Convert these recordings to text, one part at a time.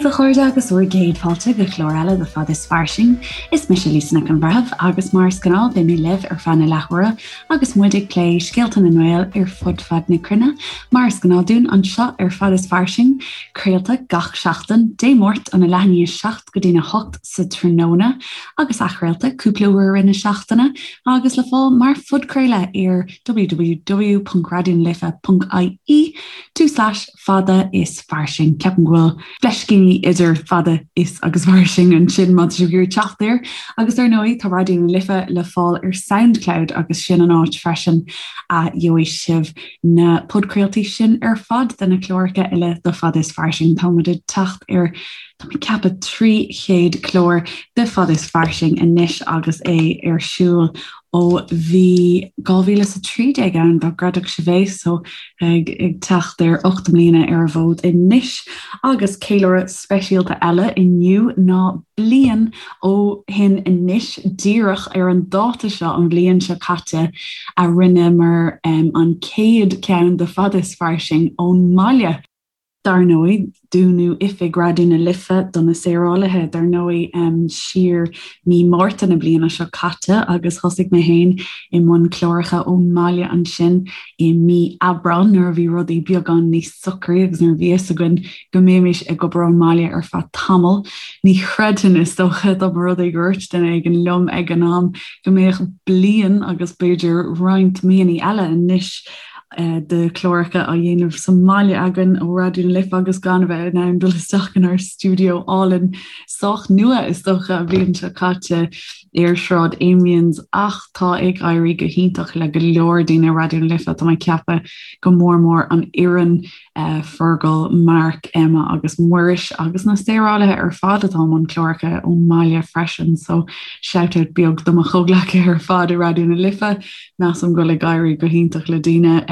daoibh a chairde agus bhur gcéad fáilte go clár eile de Fad is Fairsing. Is mise Lisa Nic an Bhreithimh agus mar is gnáth beidh mé libh ar feadh na leathuaire agus muid ag plé scéalta na nGael ar fud fad na cruinne, mar is gnáth dúinn anseo ar Fad is Fairsing, craolta gach seachtain, Dé Máirt óna leath i ndiaidh 7 go dtína 8 sa tráthnóna agus athchraolta cúpla uair i rith na seachtaine agus le fáil mar phodchraoladh ar www.raidionalife.ie fada is fairsing. Ceapaim go bhfuil fleiscíní idir fada is agus fairsing ansin má tá sibh ag iarraidh teacht air. Agus ar ndóigh tá Raidió na Life le fáil ar Soundcloud agus sin an áit freisin a gheobhaidh sibh na podchraoltaí sin ar fad de na cláracha eile de Fada is Fairsing. Tá muid ag teacht ar tá mé ag ceapadh 300 clár de Fada is Fairsing anois agus é ar siúl ó bhí 2013 ann dá gcreidfeadh sibh é so ag ag teacht ar 8 mbliana ar an bhfód anois agus ceiliúradh speisialta eile inniu ná bliain ó shin anois díreach ar an dáta seo an bhliain seo caite a rinneamar an chéad ceann de Fada is Fairsing ón mbaile. Dar ndóigh, dúnadh oifig Raidió na Life do na saorálaithe, dar ndóigh, siar mí Márta na bliana seo caite agus thosaigh mé féin i mbun cláracha ón mbaile ansin i mí Aibreáin nuair a bhí rudaí beagán níos socraí agus nuair a bhí fhios againn go mbeimis ag obair ón mbaile ar feadh tamaill. Ní chreidfinn, is dócha, dá mba rud é gur dhúirt duine éigin liom ag an am go mbeadh bliain agus b'fhéidir roinnt míonna eile anois de chláracha á dhéanamh sa mbaile againn ó Raidió na Life agus gan a bheith in ann dul isteach inár stiúideo álainn sách nua is dócha an bhliain seo caite ar Shráid Amiens ach tá ag éirí go hiontach le go leor daoine i Raidió na Life tá mé ag ceapadh go mór mór an fhoireann Fergal, Mark, Emma agus Muiris agus na saorálaithe ar fad atá i mbun cláracha ón mbaile freisin so shout out beag do mo chomhghleacaithe ar fad i Raidió na Life. Measaim go bhfuil ag éirí go hiontach le daoine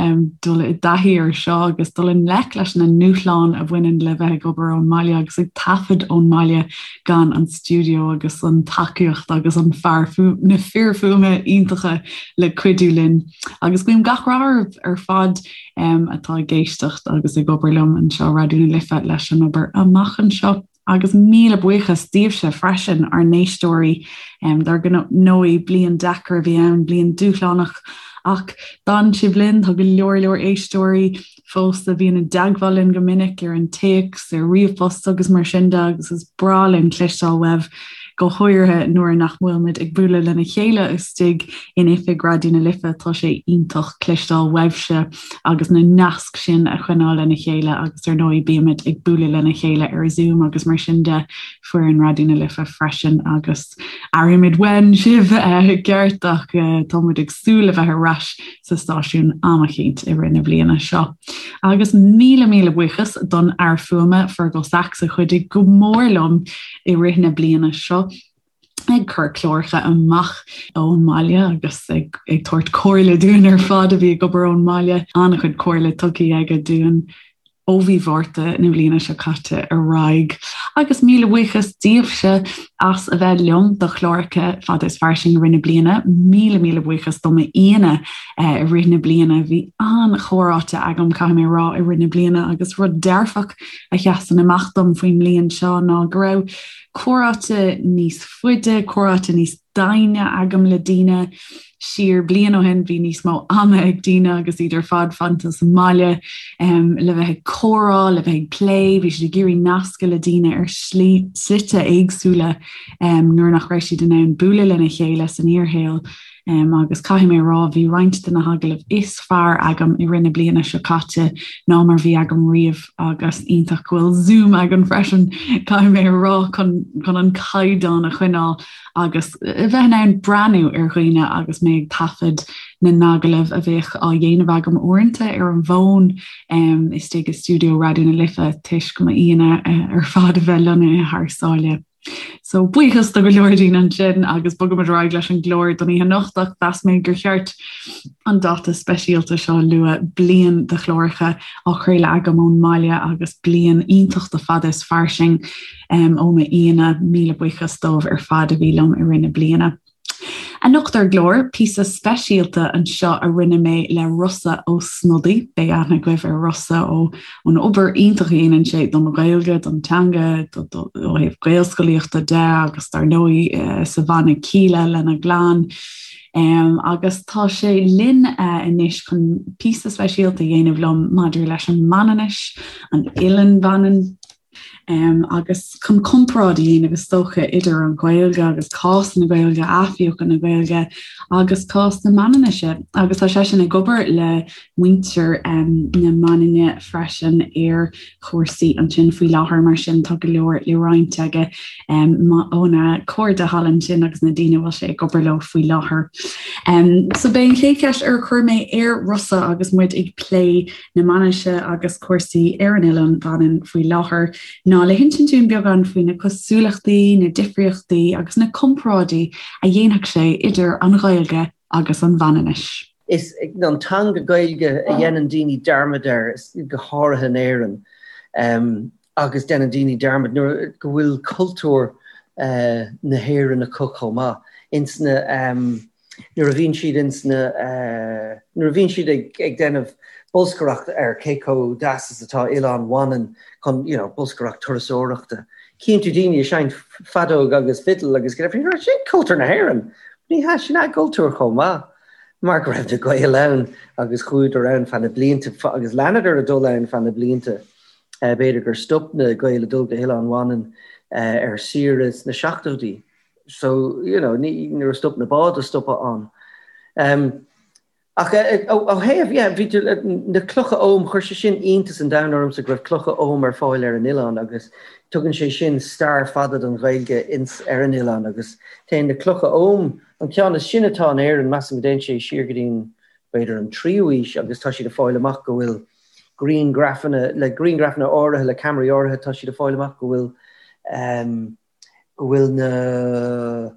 dul i dtaithí ar seo agus dul i ngleic leis na ndúshláin a bhaineann le bheith ag obair ón mbaile agus ag taifead ón mbaile gan an stiúideo agus an tacaíocht agus an fear na fir fuaime iontacha le cuidiú linn. Agus guím gach rath oraibh ar fad atá ag éisteacht agus ag obair liom anseo Raidió na Life leis an obair amach anseo. Agus míle buíochas daoibhse freisin, ár n-éisteoirí. Dar ndóigh, bliain deacair a bhí ann, bliain dúshlánach, ach d'fhan sibh linn, tá go leor leor éisteoirí fós a bhíonn i dteagmháil linn go minic ar an téacs, ar ríomhphost agus mar sin de agus is breá linn cloisteáil uaibh, go háirithe nuair nach bhfuil muid ag bualadh lena chéile istigh in oifig Raidió na Life, tá sé iontach cloisteáil uaibhse agus na naisc sin a choinneáil lena chéile agus ar ndóigh bímid ag bualadh lena chéile ar Zoom agus mar sin de, foireann Raidió na Life freisin agus airímid uainn sibh i gceart ach tá muid ag súil le bheith ar ais sa stáisiún am eicínt i rith na bliana seo. Agus míle míle buíochas don fhear fuaime Fergal Sachs a chuidigh go mór liom i rith na bliana seo ag cur cláracha amach ón mbaile agus ag ag tabhairt comhairle dúinn ar fad a bhí ag obair ón mbaile. An-chuid comhairle tugtha aige dúinn ó mhí Mhárta na bliana seo caite ar aghaidh. Agus míle buíochas daoibhse as a bheith liom do chláracha Fada is Fairsing i rith na bliana. Míle míle buíochas do m'aíonna i rith na bliana. Bhí an-chomhráite agam, caithfidh mé a rá, i rith na bliana agus rud dearfach a sheasann amach dom faoin mbliain seo ná go raibh comhráite níos faide, comhráite níos doimhne agam le daoine. Siar bliain ó shin bhí níos mó ama ag daoine agus iad ar fad fanta sa mbaile le bheith ag comhrá, le bheith ag plé, bhí siad ag iarraidh nascadh le daoine ar shlí slite éagsúla nuair nach raibh siad in ann bualadh lena chéile san fhíorshaol. Agus caithfidh mé a rá, bhí roinnt de na hagallaimh is fearr agam i rith na bliana seo caite ná mar bhí agam riamh agus iontach go bhfuil Zoom againn freisin, caithfidh mé a rá, chun chun an caighdeán a choinneáil agus a bheith in ann breathnú ar dhaoine agus mé ag taifead na n-agallamh a bheadh á dhéanamh agam uaireanta ar an bhfón istigh i stiúideo Raidió na Life toisc m'aíonna ar fad a bheith lonnaithe thar sáile. So buíochas do go leor daoine ansin agus bogaimid ar aghaidh leis an gclár don oíche anocht ach mheas mé gur cheart an dáta speisialta seo a lua, bliain de chláracha á chraoladh agam ón mbaile agus bliain iontach de Fada is Fairsing ó m'aíonna. Míle buíochas dóibh ar fad a bhí liom i rith na bliana. Anocht ar an gclár, píosa speisialta anseo a rinne mé le Rossa Ó Snodaigh. Beidh aithne agaibh ar Rossa ó ón obair iontach a dhéanann sé don Ghaeilge, don teanga, ó thaobh Gaelscolaíochta de agus dar ndóigh sa bhanna Kíla lena gclann. Agus tá sé linn anois chun píosa speisialta a dhéanamh liom maidir leis an Manainnis, an Eilean Mhanann. Agus chun comparáid a dhéanamh, is dócha, idir an Ghaeilge agus cás na Gaeilge, athbheochan na Gaeilge agus cás na Manainnise. Agus tá seisean ag obair le muintir na Manainne freisin ar chúrsaí ansin faoi láthair, mar sin tá go leor le roinnt aige óna chairde thall ansin agus na daoine a bhfuil sé ag obair leo faoi láthair. So b'é an chéad cheist ar chuir mé ar Rossa agus muid ag plé na Manainnise agus cúrsaí ar an Oileán Mhanann faoi láthair ná le hinsint dúinn beagán faoi na cosúlachtaí, na difríochtaí agus na comparáidí a dhéanfadh sé idir an Ghaeilge agus an Mhanainnis. Is an teanga Gaeilge a dhéanann daoine dearmad air, go háirithe in Éirinn, agus déanann daoine dearmad nuair go bhfuil cultúr na hÉireann acu chomh maith. Ins na. nuair a bhíonn siad ins na, nuair a bhíonn siad ag ag déanamh bolscaireacht ar cé chomh deas is atá Oileán Mhanann chun, you know, bolscaireacht turasóireachta. Cíonn tú daoine ag seinnt feadóg agus fidil agus go deimhin, sin cultúr na hÉireann! Ní hea, sin a gcultúr chomh maith, mar go raibh na Gaeil ann agus chuadar ann feadh na blianta agus leanadar ag dul ann feadh na blianta. B'fhéidir gur stop na Gaeil ag dul go hOileán Mhanann ar saoire sna seachtóidí. So, you know, ní, nuair a stop na báid a stopadh ann. Um, ach eh, ó, ó thaobh, yeah, bhí tú, na clocha Ogham, chuir sé sin iontas an domhain ormsa go raibh clocha Ogham ar fáil ar an oileán agus tugann sé sin stair fada don Ghaeilge ins ar an oileán agus téann na clocha Ogham, an ceann is sine atá in Éirinn, measaim go dtéann sé siar go dtí an, b'fhéidir an tríú aois agus tá siad ag fáil amach go bhfuil grianghrafanna, le grianghrafanna áirithe, le ceamaraí áirithe, tá siad ag fáil amach go bhfuil um, go bhfuil na,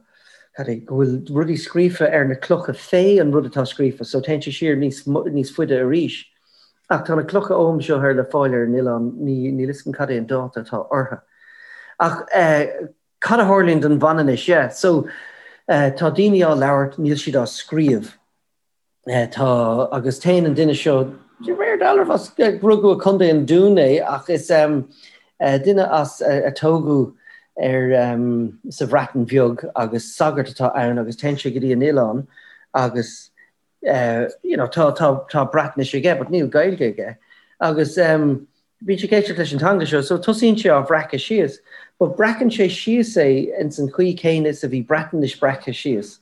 cad é, go bhfuil rudaí scríofa ar na clocha fé an rud atá scríofa, so téann sé siar níos, níos faide arís. Ach tá na clocha Ogham seo ar le fáil ar an oileán, ní, níl 'fhios agam cad é an dáta atá orthu. Ach eh, cad a tharlaíonn don Mhanainnis, yeah, so eh, tá daoine á labhairt, níl siad á scríobh. Tá, agus téann an duine seo, de réir dealraimh, as, rugadh i Contae an Dúin é ach is duine as a tógadh ar sa Bhreatain Bheag agus sagart atá ann agus téann sé go dtí an oileán agus you know tá tá tá Breatnais aige but níl Gaeilge aige agus Bíonn sé ag éisteacht leis an teanga seo, so tosaíonn sé á bhreacadh síos. But breacann sé síos é ins an chaoi céanna is a bhí Breatnais breactha síos.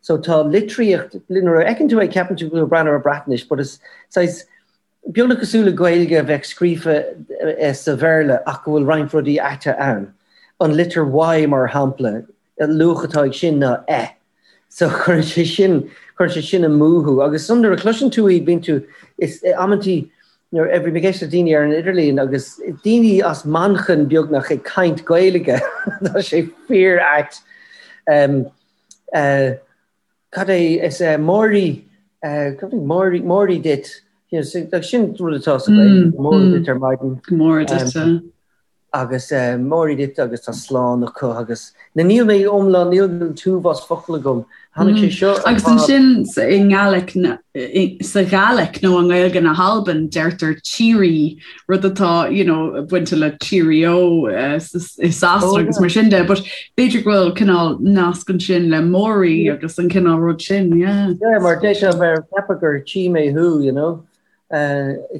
So tá litríocht, nuair a fheiceann tú é ceapann tú go bhfuil ag breathnú ar Breatnais, but is saghas beagnach cosúil le Gaeilge a bheadh scríofa sa Bhéarla ach go bhfuil roinnt rudaí aite ann. An litir Y mar shampla, an luach atá ag sin ná E. So cuireann sé sin, cuireann sé sin amú thú. Agus ansan nuair a chloiseann tú iad, bíonn tú, is amantaí nuair a bhí mé ag éisteacht le daoine ar an idirlíon agus daoine as Manchain beagnach ag caint Gaeilge, tá sé fíor ait. Um, uh, cad é is uh, Mòiri, uh, cad é Mòiri, Mòiri duit, you know, so, sin rud atá sa Ghaeilge, mm, Mòiri mm. duit ar maidin. Mòiri duit. Um, agus Mòiri duit agus tá slán acu agus na níl mé iomlán, níl an t-uafás focal agam. Tháinig sé seo Agus ansin i nGaelic sa Ghàidhlic nó i nGaeilge na hAlban deirtear cheery rud atá you know, bainte le cheerio i Sasana agus mar sin de, but b'fhéidir go bhfuil cineál nasc ansin le Mòiri agus an cineál rud sin, yeah. Yeah, mar deir sé mar ceapadh gur tchí mé thú, you know.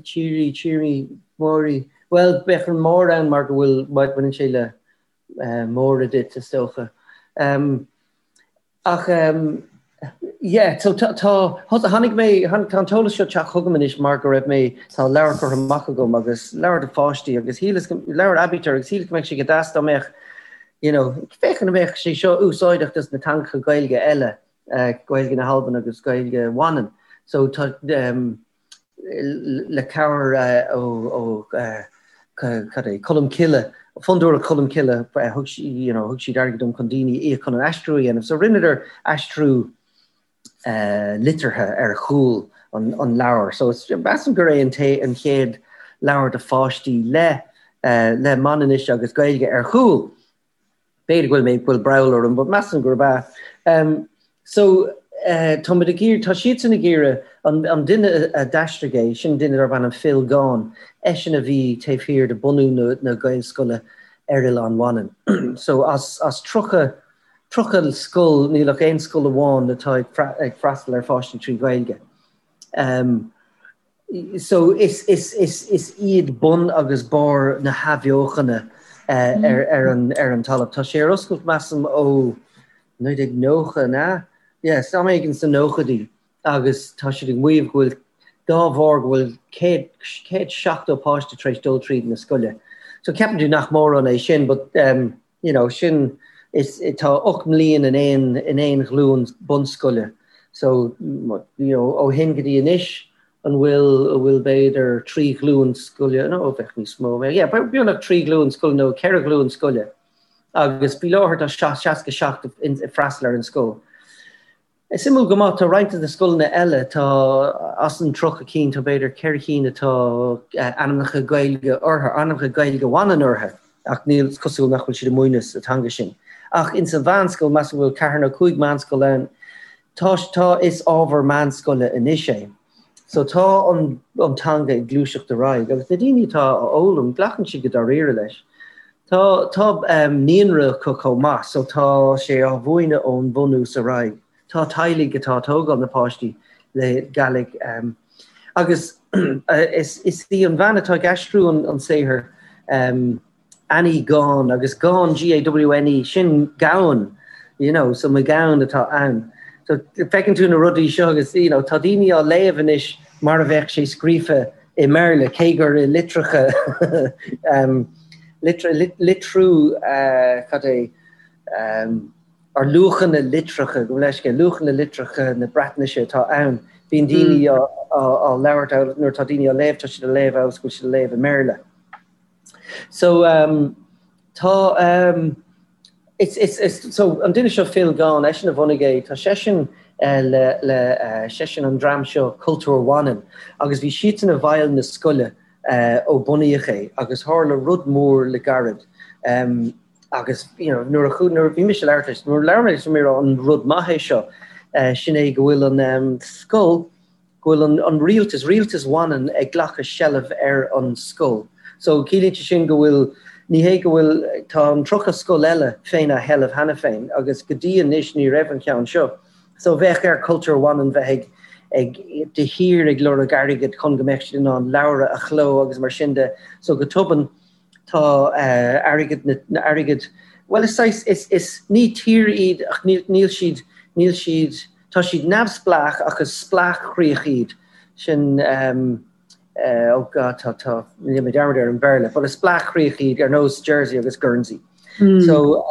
Cheery, cheery, Mòiri. Bhuel, bheadh an mór ann mar go bhfuil, baineann sé le Mòra duit, is dócha. Ach, yeah, so tá, tháinig mé, tá an t-eolas seo ag teacht chugam anois mar go raibh mé, tá leabhar curtha amach agam agus leabhar do pháistí agus shíleas, leabhar aibítir agus shíleas go mbeadh sé go deas dá mbeadh, you know, féachaint an mbeadh sé seo úsáideach dos na teangacha Gaeilge eile. Gaeilge na hAlban agus Gaeilge Mhanann. So tá le cabhair ó cad é, Colm Cille, Fondúireacht Cholm Cille, thug you know, thug siad airgead dom chun daoine a íoc chun an aistriú a dhéanamh. So rinneadar aistriú liteartha ar chúl an leabhair. So measaim gur é an an chéad leabhar do pháistí le le Manainnis agus Gaeilge ar chúl. B'fhéidir go bhfuil mé, go bhfuil breall orm, but measaim gurb ea. So, táimid ag iarraidh, tá siadsan ag iarraidh, an duine a d'aistrigh é, sin duine darb ainm Phil Gawne, eisean a bhí taobh thiar de bunú na Gaelscoile ar Oileán Mhanann. So, as 30, 30 scoil, níl ach aon scoil amháin atá ag freastal ar pháistí trí Ghaeilge. So, is iad bun agus barr na hathbheochana ar an talamh. Tá sé ar oscailt, measaim, ó 1990, an ea? Yes, am éigin sna nóchaidí agus tá siad ag maíomh go bhfuil, dá bharr, go bhfuil 170 páiste tar éis dul tríd na scoile. So ceapann tú nach mórán é sin but you know, sin, is, tá 8 mbliain in aon, in aon ghlúin bunscoile. So, you know, ó shin go dtí anois, an bhfuil, an bhfuil b'fhéidir 3 ghlúin scoile, no, bheadh níos mó, yeah, beagnach 3 ghlúin scoile nó 4 ghlúin scoile. Agus faoi láthair tá 67 ag freastal ar an scoil. Is suimiúil go maith, tá roinnt de na scoileanna eile, tá, as an 30 cinn, tá b'fhéidir 4 chinn atá ainmneacha Gaeilge orthu, ainmneacha Gaeilge Mhanann orthu, ach níl, is cosúil nach bhfuil siad ag múineadh sa teanga sin. Ach ins an mheánscoil, measaim go bhfuil ceathair nó cúig meánscoil ann, tá, tá, is ábhar meánscoile anois é. So tá an teanga ag gluaiseacht ar aghaidh agus na daoine atá á fhoghlaim, glacann siad go dáiríre leis. Tá tá naíonra acu chomh maith so tá sé á mhúineadh ón bhunús ar aghaidh. Tá teaghlaigh atá ag tógáil na páistí le Gàidhlig agus is í an bhean atá ag aistriú an saothar, Annie Gawne agus Gawne, G-A-W-N-E, sin gamhain, you know, so McGowan atá ann. So feiceann tú na rudaí seo agus, you know, tá daoine á léamh anois mar a bheadh sé scríofa i mBéarla, cé gur i litreacha, um, litriú, uh, cad é, um, ar luachanna litreacha, gabh mo leithscéal, luachanna litreacha na Breatnaise atá ann. Bíonn daoine mm. á, á, á labhairt, nuair atá daoine á léamh, tá siad á léamh amhail is go bhfuil siad á léamh i mBéarla. So um, tá um, it's, it's, it's, so an duine seo Phil Gawne, eisean a bhunaigh é, tá seisean uh, le, le uh, seisean an dream seo Cultúr Mhanann agus bhí siadsan i bhfeighil na scoile uh, ó bunaíodh é agus tharla rud mór le gairid. Um, agus you know, nuair a nuair a bhí mise ag labhairt leis, nuair a labhair mé leis mé an rud maith é seo, uh, sin é go bhfuil an um, scoil go bhfuil an rialtas, Rialtas Mhanann ag glacadh seilbh ar an scoil. So ciallaíonn sé sin go bhfuil, ní hé go bhfuil, tá an 30 scoil eile féna sheilbh cheana féin agus go dtí anois ní raibh an ceann seo. So bheadh ar Cultúr Mhanann bheith ag, ag, de shíor ag lorg airgid chun go mbeadh siad in ann leabhra a chló agus mar sin de. So go tobann tá airgead na, airgead, bhuel is saghas, is, is, ní tír iad ach níl, níl siad, níl siad, Tá siad neamhspleách ach is spleáchchríoch iad sin oh God tá tá rinne mé dearmad ar an Bhéarla but is spleáchchríoch iad ar nós Jersey agus Guernsey. So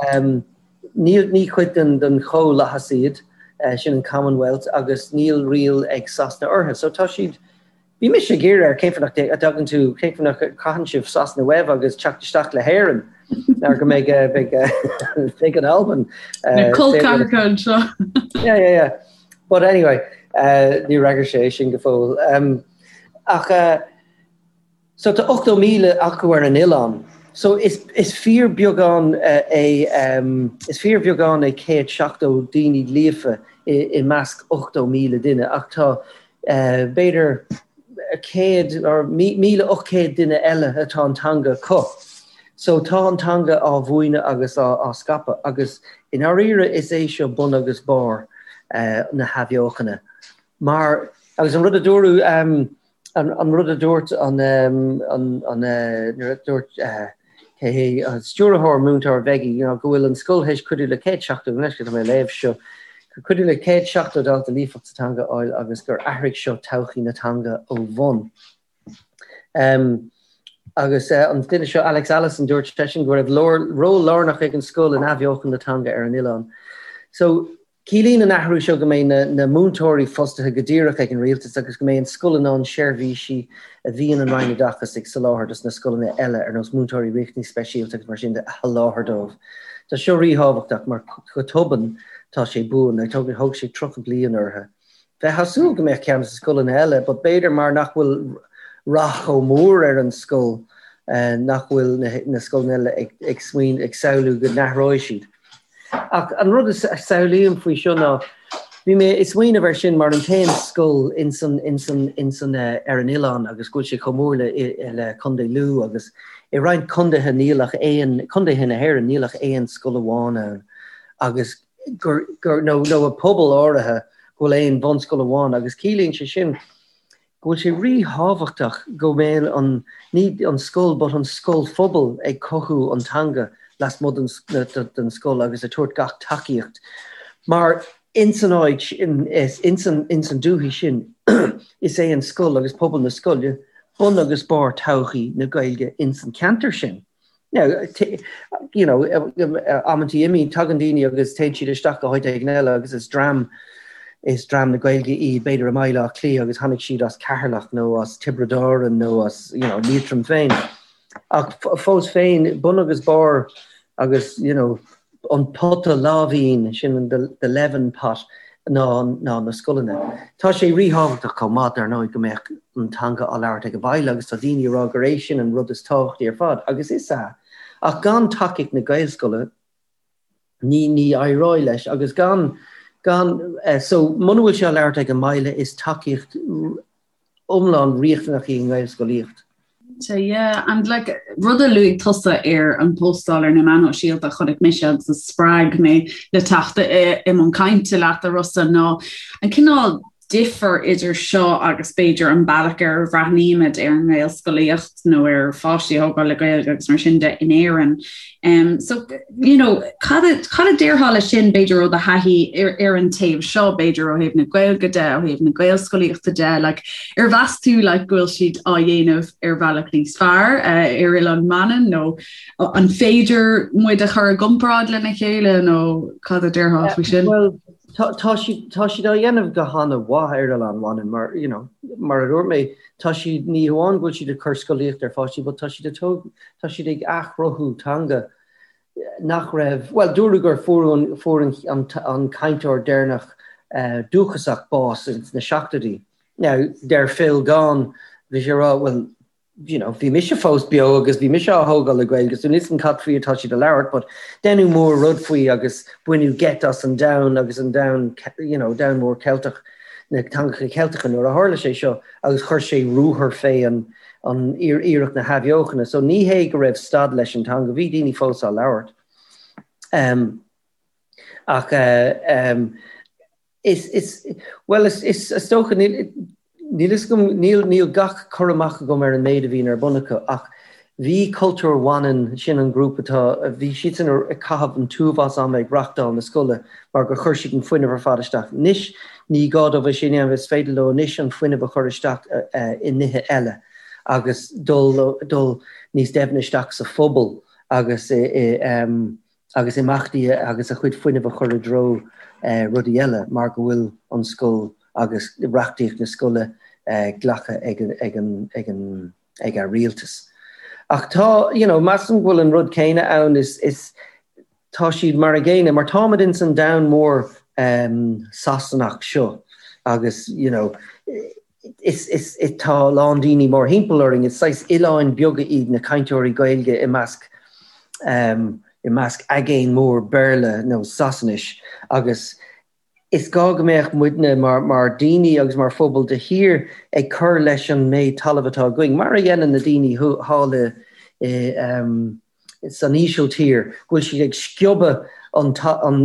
níl ní cuid den den chomhlathas iad sin an Commonwealth agus níl riail ag Sasana orthu. So tá siad Bhí mise ag iarraidh air cén fáth nach dtagann tú, cén fáth nach gcaitheann sibh Sasana uaibh agus teacht isteach le hÉirinn mar go mbeidh beidh beidh an Albain Na col ceathracha anseo. Yeah, yeah, yeah. But anyway, uh, ní fhreagair sé sin go fóill. Um, ach uh, so tá 80,000 acu ar an oileán. So is, is fíorbheagán uh, é um, is fíorbheagán é 170 daoine líofa i, i measc 80,000 duine ach tá b'fhéidir 100 or 1,800 duine eile atá an teanga acu. So tá an teanga á mhúineadh agus á scaipeadh agus i ndáiríre is é seo bun agus barr na hathbheochana. Mar, agus an rud a dúradh, an rud a dúirt an, an, nuair a dúirt, cé hé an stiúrthóir múinteoir Mheigie, you know, go bhfuil an scoil théis cuidiú le 170, anois go tá mé ag léamh seo, cuidiú le 170 dalta líofacht sa teanga a fháil agus gur athraigh seo todhchaí na teanga ó bhun. Um, agus uh, an duine seo Alex Allison dúirt seisean go raibh ról lárnach ag an scoil in athbheochan na teanga ar an oileán. So Ciallaíonn an athrú seo go mbeidh na múinteoirí fostaithe go díreach ag an rialtas agus go mbeidh an scoil in ann seirbhísí a bhíonn an Roinn Oideachais ag soláthar dos na scoileanna eile, ar nós múinteoirí riachtanais speisialta agus mar sin de, a sholáthar dóibh. Tá seo ríthábhachtach mar go tobann tá sé buan. Thóg sé 30 bliain orthu. Bheifeá ag súil go mbeadh ceann dos na scoileanna eile but b'fhéidir mar nach bhfuil rath chomh mór ar an scoil nach bhfuil na scoileanna eile ag smaoineamh, ag samhlú go n-athróidh siad. Ach an rud a samhlaím faoi seo ná. Bhí mé ag smaoineamh air sin mar an t-aon scoil ins an, ins an, ins an, ar an oileán agus go bhfuil sé chomh mór le, le Contae Lú agus i roinnt contaetha níl ach aon, contaetha na hÉireann, níl ach aon scoil amháin ann agus gur, gur, nó, nó i pobal áirithe go bhfuil aon bhunscoil amháin agus ciallaíonn sé sin go bhfuil sé ríthábhachtach go mbeadh an, ní an scoil but an scoilphobal ag cothú an teanga lasmuigh den scoil agus ag tabhairt gach tacaíocht mar ins an áit, ins an, ins an dúthaigh sin is é an scoil agus pobal na scoile bun agus barr todhchaí na Gaeilge ins an ceantar sin. Now, you know, amantaí imíonn, tagann daoine agus téann siad isteach go háit éigin eile agus is dream, is dream na Gaeilge iad, b'fhéidir i mBaile Átha Cliath agus tháinig siad as Ceatharlach nó as Tiobraid Árann nó as, you know, Liatroim féin. Ach fós féin, bun agus barr agus, you know, an pota láimhín, sin an the leaven pot, ná ná na scoileanna. Tá sé ríthábhachtach chomh maith, dar ndóigh, go mbeadh an teanga á labhairt ag an baile agus tá daoine ag rá gur é sin an rud is tábhachtaí ar fad, agus is ea. Ach gan tacaíocht na Gaelscoile, ní ní éireoidh leis agus gan gan so muna bhfuil sé á labhairt ag an mbaile is tacaíocht iomlán riachtanach í an nGaelscolaíocht. Cinnte, yeah. And like, rud a luaigh tusa ar an bpóstáil ar na meáin shóisialta a chonaic mise agus a spreag mé le teacht i mbun cainte leat, a Rossa, ná an cineál difear idir seo agus b'fhéidir an bealach ar a bhreathnaímid ar an nGaelscolaíocht nó ar pháistí a thógáil le Gaeilge agus mar sin de in Éirinn. Um, so, you know, cad a, cad a déarfá leis sin b'fhéidir ó do thaithí ar, ar an taobh seo, b'fhéidir ó thaobh na Gaeilge de, ó thaobh na Gaelscolaíochta de, like, ar mheas tú like, go bhfuil siad á dhéanamh ar bhealach níos fearr uh, ar Oileán Mhanann nó an féidir muid a chur i gcomparáid lena chéile nó cad a déarfá faoi sin? Well, tá, tá siad, tá siad á dhéanamh go han-mhaith ar Oileán Mhanann mar, you know, mar a dúirt mé, tá siad, ní hamháin go bhfuil siad ag cur scolaíocht ar pháistí, but tá siad ag tóg, tá siad ag athchruthú teanga nach raibh, bhuel, dúradh gur fuair an, fuair an, an, an cainteoir deireanach dúchasach bás ins na seachtóidí. Now, deir Phil Gawne, bhí sé ag rá, bhuel, you know, bhí mise fós beo agus bhí mise á thógáil le Gaeilge, so níl 'fhios agam cad faoi atá siad ag labhairt, but deineadh mór rud faoi agus baineadh geit as an domhan agus an domhan, you know, domhan mór Ceilteach, na teangacha Ceilteacha nuair a tharla sé seo agus chuir sé ruathar fé an, an iarracht na hathbheochana. So ní hé go raibh stad leis an teanga, bhí daoine fós á labhairt. Um, ach um, is, is, well, is, is, is dócha, níl, níl 'fhios agam, níl, níl gach cur amach agam ar an méid a bhíonn ar bun acu, ach bhí Cultúr Mhanann, sin an grúpa atá, bhí siadsan ag caitheamh an t-uafás ama ag reachtáil na scoile mar gur chuir siad an fuinneamh ar fad isteach. Anois ní gá dóibh é sin a dhéanamh, is féidir leo anois an fuinneamh a chur isteach i nithe eile agus dul, dul níos doimhne isteach sa phobal agus i, i, agus imeachtaí agus a chuid fuinnimh a chur i dtreo rudaí eile mar go bhfuil an scoil agus reachtaíocht na scoile glactha ag an ag an ag an rialtas. Ach tá, you know, measaim go bhfuil an rud céanna ann, is is tá siad mar a gcéanna, mar táimid ins an domhan mór Sasanach seo agus, you know, is is tá a lán daoine mórthimpeall orainn, is saghas oileáin beaga iad na cainteoirí Gaeilge i measc i measc aigéan mór Béarla nó Sasanais agus is gá go mbeadh muidne mar mar daoine agus mar phobal de shíor ag cur leis an méid talaimh atá againn, mar a dhéanann na daoine thall i i san Ísiltír, go bhfuil siad ag sciobadh an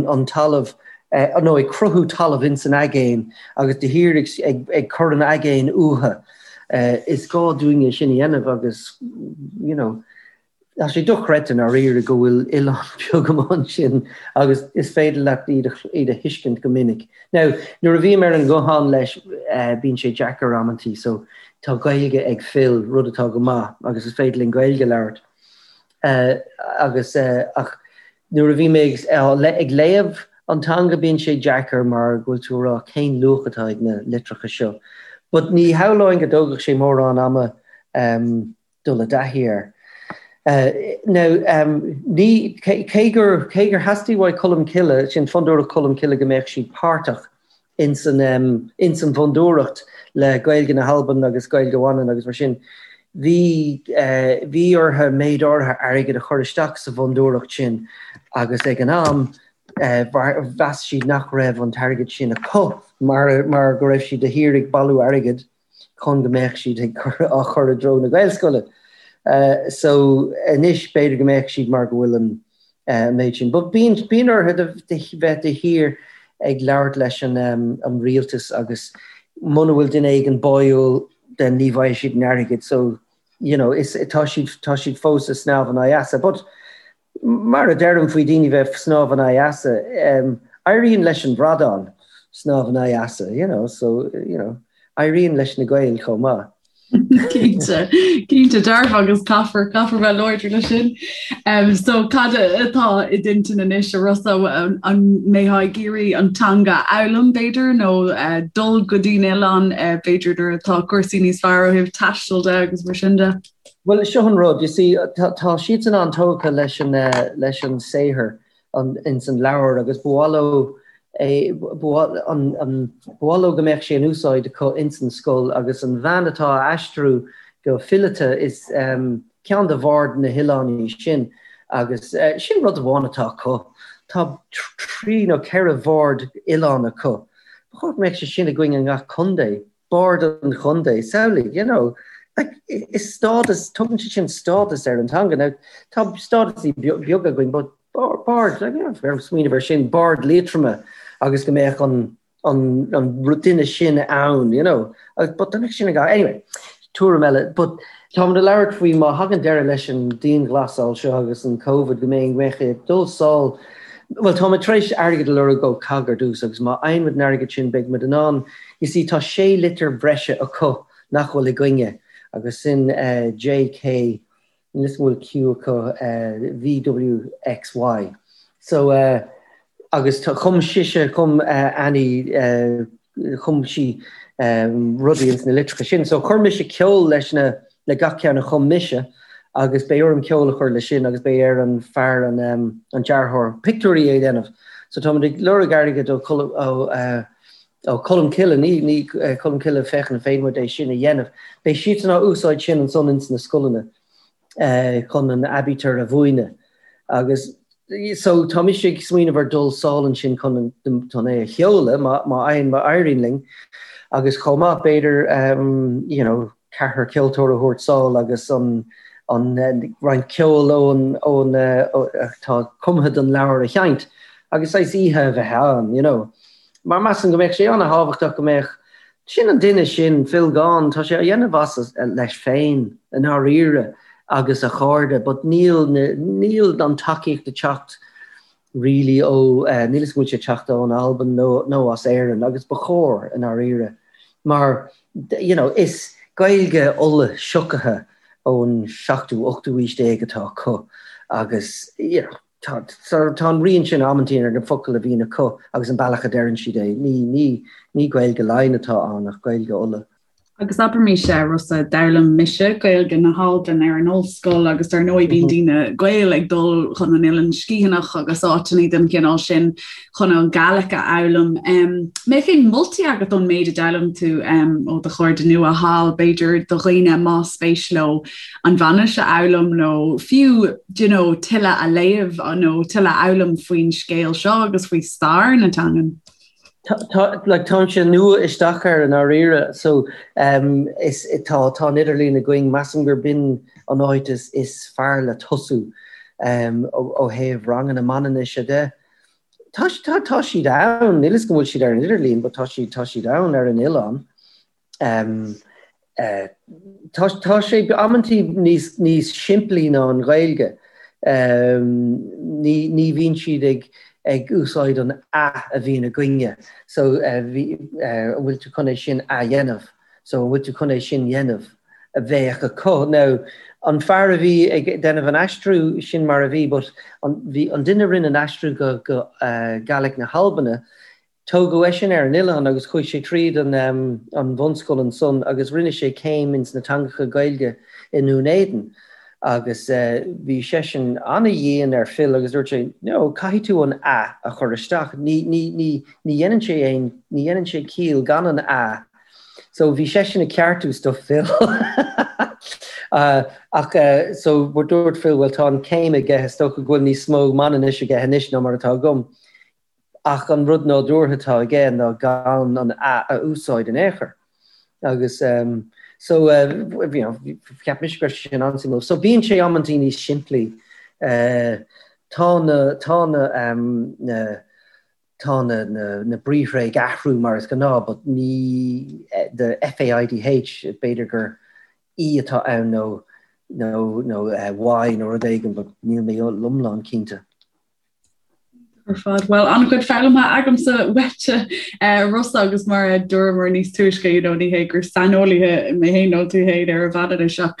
an talamh nó ag cruthú talamh ins an aigéan agus de shíor ag ag cur an aigéin uathu. Is gá dúinne sin a dhéanamh agus you know tá sé dochreidte i ndáiríre go bhfuil oileán beag amuigh ansin agus is féidir leat iad iad a thuiscint go minic. Now nuair a bhím ar an nguthán leis bíonn sé deacair amantaí so tá Gaeilge ag Phil, rud atá go maith agus is féidir linn Gaeilge a labhairt. Agus ach nuair a bhí mé ag léamh an teanga bíonn sé deacair mar go bhfuil tú ag rá cén luach atá ag na litreacha seo. But ní shamhlóinn go dtógfadh sé mórán ama dul i dtaithí air. Now ní, cé gur, cé gur theastaigh uaidh Colmcille, sin Fondúireacht Cholmcille go mbeadh siad páirteach ins an ins an bhfondúireacht le Gaeilge na hAlban agus Gaeilge Mhanann agus mar sin. Bhí bhí orthu méid áirithe airgid a chur isteach sa bhfondúireacht sin agus ag an am Mheas siad nach raibh an t-airgead sin acu mar mar go raibh siad de shíor ag bailiú airgid chun go mbeadh siad ag cur á chur i dtreo na Gaelscoile. So anois b'fhéidir go mbeadh siad mar go bhfuil an méid sin. But bíonn bíonn orthu de bheith de shíor ag labhairt leis an an rialtas agus muna bhfuil duine éigin báúil then ní bhfaighidh siad an airgead. So you know is tá siad tá siad fós ag snámh in aghaidh easa. But Mar a deirim faoi daoine bheith snámh in aghaidh easa, éiríonn leis an bhradán snámh in aghaidh easa, you know, so, you know, éiríonn leis na Gaeil chomh maith. Cinnte, cinnte dearfa agus caithfear, caithfear bheith láidir leis sin. Um, so cad atá i d'intinn anois a Rossa an mbeifeá ag iarraidh an teanga a fhoghlaim b'fhéidir nó uh, dul go dtí an oileán uh, b'fhéidir nuair atá cúrsaí níos fearr ó thaobh taistil de agus mar sin de? Bhuel, seo an rud, you see, tá siadsan an-tógtha leis an, leis an saothar ins an leabhar agus ba mhaith leo é, ba mhaith leo go mbeadh sé in úsáid acu ins an scoil agus an bhean atá á aistriú go fileata is ceann de bhaird na hoileáin í sin agus sin rud amháin atá acu, tá trí nó ceithre bhard oileáin acu. Ba chóir go mbeadh sé sin againn i ngach contae. Bard an chontae, samhlaigh, you know, like, is stádas, tugann sé sin stádas ar an teanga. Now, tá stádasaí beaga againn, but bard, like, you know, smaoineamh ar sin, Bard Liatroma agus go mbeadh an, an, an duine sin ann, you know, but dá mbeadh sin ag, anyway, tuairim eile, but táimid ag labhairt faoi má thagann deireadh leis an dianghlasáil seo agus an Covid go mbeidh, mbeidh ag dul sall, bhuel, táimid tar éis airgead a lorg ó COGG ar dtús agus má fhaigheann muid an airgead sin beidh muid in ann You see, tá sé litir bhreise acu nach bhfuil againne, agus sin J, K, níl 'fhios an bhfuil Q acu, V, W, X, Y. So, agus chum sise, chum Annie, chum sí rudaí ins na litreacha sin. So chuir mise ceol leis na, le gach ceann a chum mise, agus beidh orm ceol a chur leis sin agus beidh ar an fear, an dearthóir pictiúirí a dhéanamh. So táimid ag lorg airgid ó, ó, Ó Colmcille, ní, ní Colmcille, féachaint an féidir muid é sin a dhéanamh. Beidh siadsan á úsáid sin ansan ins na scoileanna chun an aibítir a mhúineadh. Agus so tá mise ag smaoineamh ar dul sall ansin chun an, chun é a sheoladh má, má fhaigheann, má éiríonn linn. Agus chomh maith b'fhéidir you know ceathrar ceoltóir a thabhairt sall agus an, an roinnt ceoil ón, ón, atá cumtha don leabhar a sheinnt agus saghas oíche a bheith ann, you know. Mar measaim go mbeadh sé an-thábhachtach go mbeadh, sin an duine sin, Phil Gawne, tá sé á dhéanamh as leis féin i ndáiríre agus a chairde but níl na, níl an tacaíocht ag teacht really ó, níl 'fhios go bhfuil sé ag teacht ón Albain nó, nó as Éirinn agus ba chóir i ndáiríre mar you know is Gaeilge Uladh siocaithe ón seachtú, ochtú aois déag atá acu agus you know, Tá, tá an rian sin amantaí ar na focail a bhíonn acu agus an bealach a deireann siad é. Ní, ní, ní Gaeilge Laighean atá ann ach Gaeilge Uladh. Agus abraimis, a Rossa, d'fhoghlaim mise Gaeilge na hAlban ar an ollscoil agus dar ndóigh bíonn daoine Gael ag dul chun an Oileán Sgitheanach agus áiteanna den chineál sin chun an Gàidhlig a fhoghlaim. Mbeadh aon moltaí agat ón méid a d'fhoghlaim tú ó do chairde nua thall, b'fhéidir do dhaoine más spéis leo an Mhanainnis a fhoghlaim nó fiú do you know, tuilleadh a léamh nó tuilleadh a fhoghlaim faoin scéal seo agus faoi stair na teangan? Tá, like, táimse nua isteach air i ndáiríre, so um, is, tá, tá an idirlíon againn, measaim gur b'in an áit is, is fearr le tosú um, ó, ó thaobh ranganna Manainnise de. Tá, tá, tá siad ann, níl 'fhios go bhfuil siad ar an idirlíon, but tá siad, tá siad ann ar an oileán. Tá tá sé amantaí níos níos simplí ná an Ghaeilge. Ní ní bhíonn siad ag ag úsáid an 'a' a bhíonn againne. So bhí an bhfuil tú chun é sin a dhéanamh? So an bhfuil tú chun é sin dhéanamh? a bheadh acu. Now an fear a bhí ag déanamh an aistriú sin mar a bhí but an bhí an duine a rinne an aistriú go go Gaelic na hAlbana Tógadh eisean ar an oileán agus chuaigh sé tríd an an bhunscoil ansan agus rinne sé céim ins na teangacha Gaeilge i nDún Éideann agus bhí seisean ana-dhian ar Phil agus dúirt sé no, caithfidh tú an 'a' a chur isteach, ní, ní, ní, ní dhéanann sé aon, ní dhéanann sé ciall gan an 'a'. So bhí seisean ag ceartú stuff Phil. Ach so dúirt Phil bhuel tá an céim aige, is dócha go bhfuil níos mó Manainnis aige anois ná mar atá agam. Ach an rud nádúrtha atá aige ná gan an a a úsáid in aon chor. Agus so you know cheap mise go raibh sé sin an-suimiúil. So bíonn sé amantaí níos simplí. Tá na tá na na tá na na na briathra ag athrú mar is gnáth but ní the FAIDH b'fhéidir gur E atá ann nó nó nó Y nó rud éigin but níl mé iomlán cinnte. Ar fad. Bhuel, an-chuid foghlamtha agamsa uaitse, Rossa, agus mar a dúramar níos túisce, you know, ní hé gur saineolaithe mé féin nó tú féin ar an Mhanainnis ach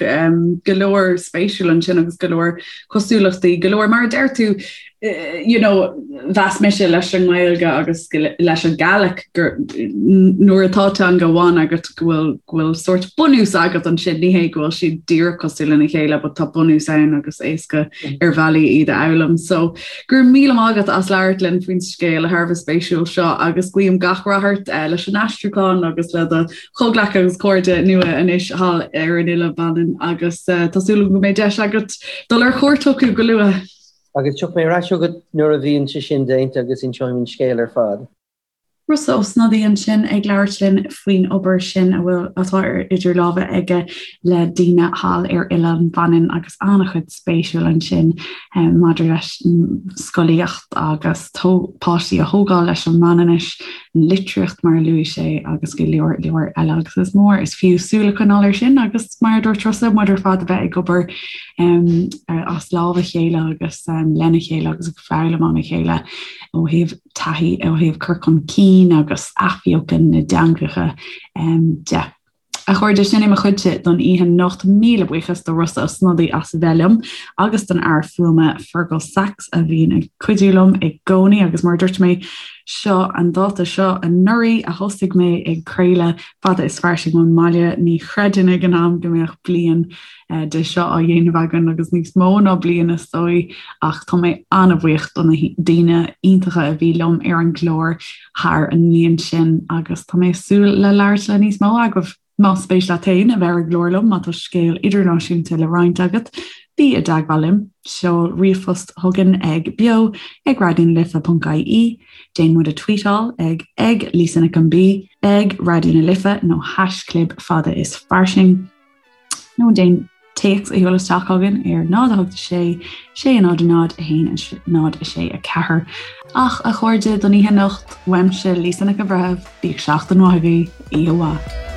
go leor spéisiúil ansin agus go leor cosúlachtaí, go leor, mar a deir tú, you know, mheas mise leis an nGaeilge agus leis an Gàidhlig gur nuair atá teanga amháin agat go bhfuil go bhfuil sórt bunús agat ansin, ní hé go bhfuil siad díreach cosúil lena chéile, but tá bunús ann agus éasca ar bhealaí iad a fhoghlaim. So go raibh míle maith agat as labhairt linn faoin scéal thar a bheith spéisiúil seo agus guím gach rath ort eh, leis an aistriúchán agus le do chomhghleacaithe agus cairde nua anois thall ar an Oileán Mhanann agus eh, tá súil agam go mbeidh deis agat dul ar chuairt chucu go luath. Agus tiocfaidh mé ar ais chugat nuair a bhíonn sé sin déanta agus inseoidh mé an scéal ar fad. Rossa Ó Snodaigh ansin ag labhairt linn faoin obair sin a bhfuil atá ar idir lámha aige le daoine thall ar Oileán Mhanann agus an-chuid spéisiúil ansin maidir leis an scolaíocht agus páistí a thógáil leis an Mhanainnis, an litríocht mar a luaigh sé agus go leor leor eile agus is mór is fiú súil a choinneáil air sin agus mar a dúirt Rossa muid ar fad a bheith ag obair as lámh a chéile agus lena chéile agus ag foghlaim óna chéile ó thaobh taithí ó thaobh cur chun cinn agus athbheochan na dteangacha de. A chairde, sin é mo chuidse don oíche anocht. Míle buíochas do Rossa Ó Snodaigh as a bheith liom agus don fhear fuaime Fergal Sachs a bhíonn ag cuidiú liom i gcónaí agus mar a dúirt mé, seo an dáta seo anuraidh a thosaigh mé ag craoladh Fada is Fairsing ón mbaile. Ní chreidfinn ag an am go mbeadh bliain de seo á dhéanamh againn agus níos mó ná bliain is dóigh ach tá mé an-bhuíoch do na daoine iontacha a bhí liom ar an gclár thar an mbliain sin agus tá mé ag súil le labhairt le níos mó agaibh. Más spéis leat féin a bheith ar an gclár liom, má tá scéal idirnáisiúnta le roinnt agat, bí i dteagmháil liom. Seol ríomhphost chugainn ag beo ag raidionalife.ie, déan muid a tweetáil ag ag Lisa Nic an B, ag Raidió na Life nó haischlib fada is fairsing. Nó déan téacs a sheoladh isteach chugainn ar 0 8 6 6 0 0 1 0 6 4. Ach a chairde don oíche anocht, uaimse Lisa Nic an Bhreithimh, bíodh seachtain mhaith agaibh, oíche mhaith.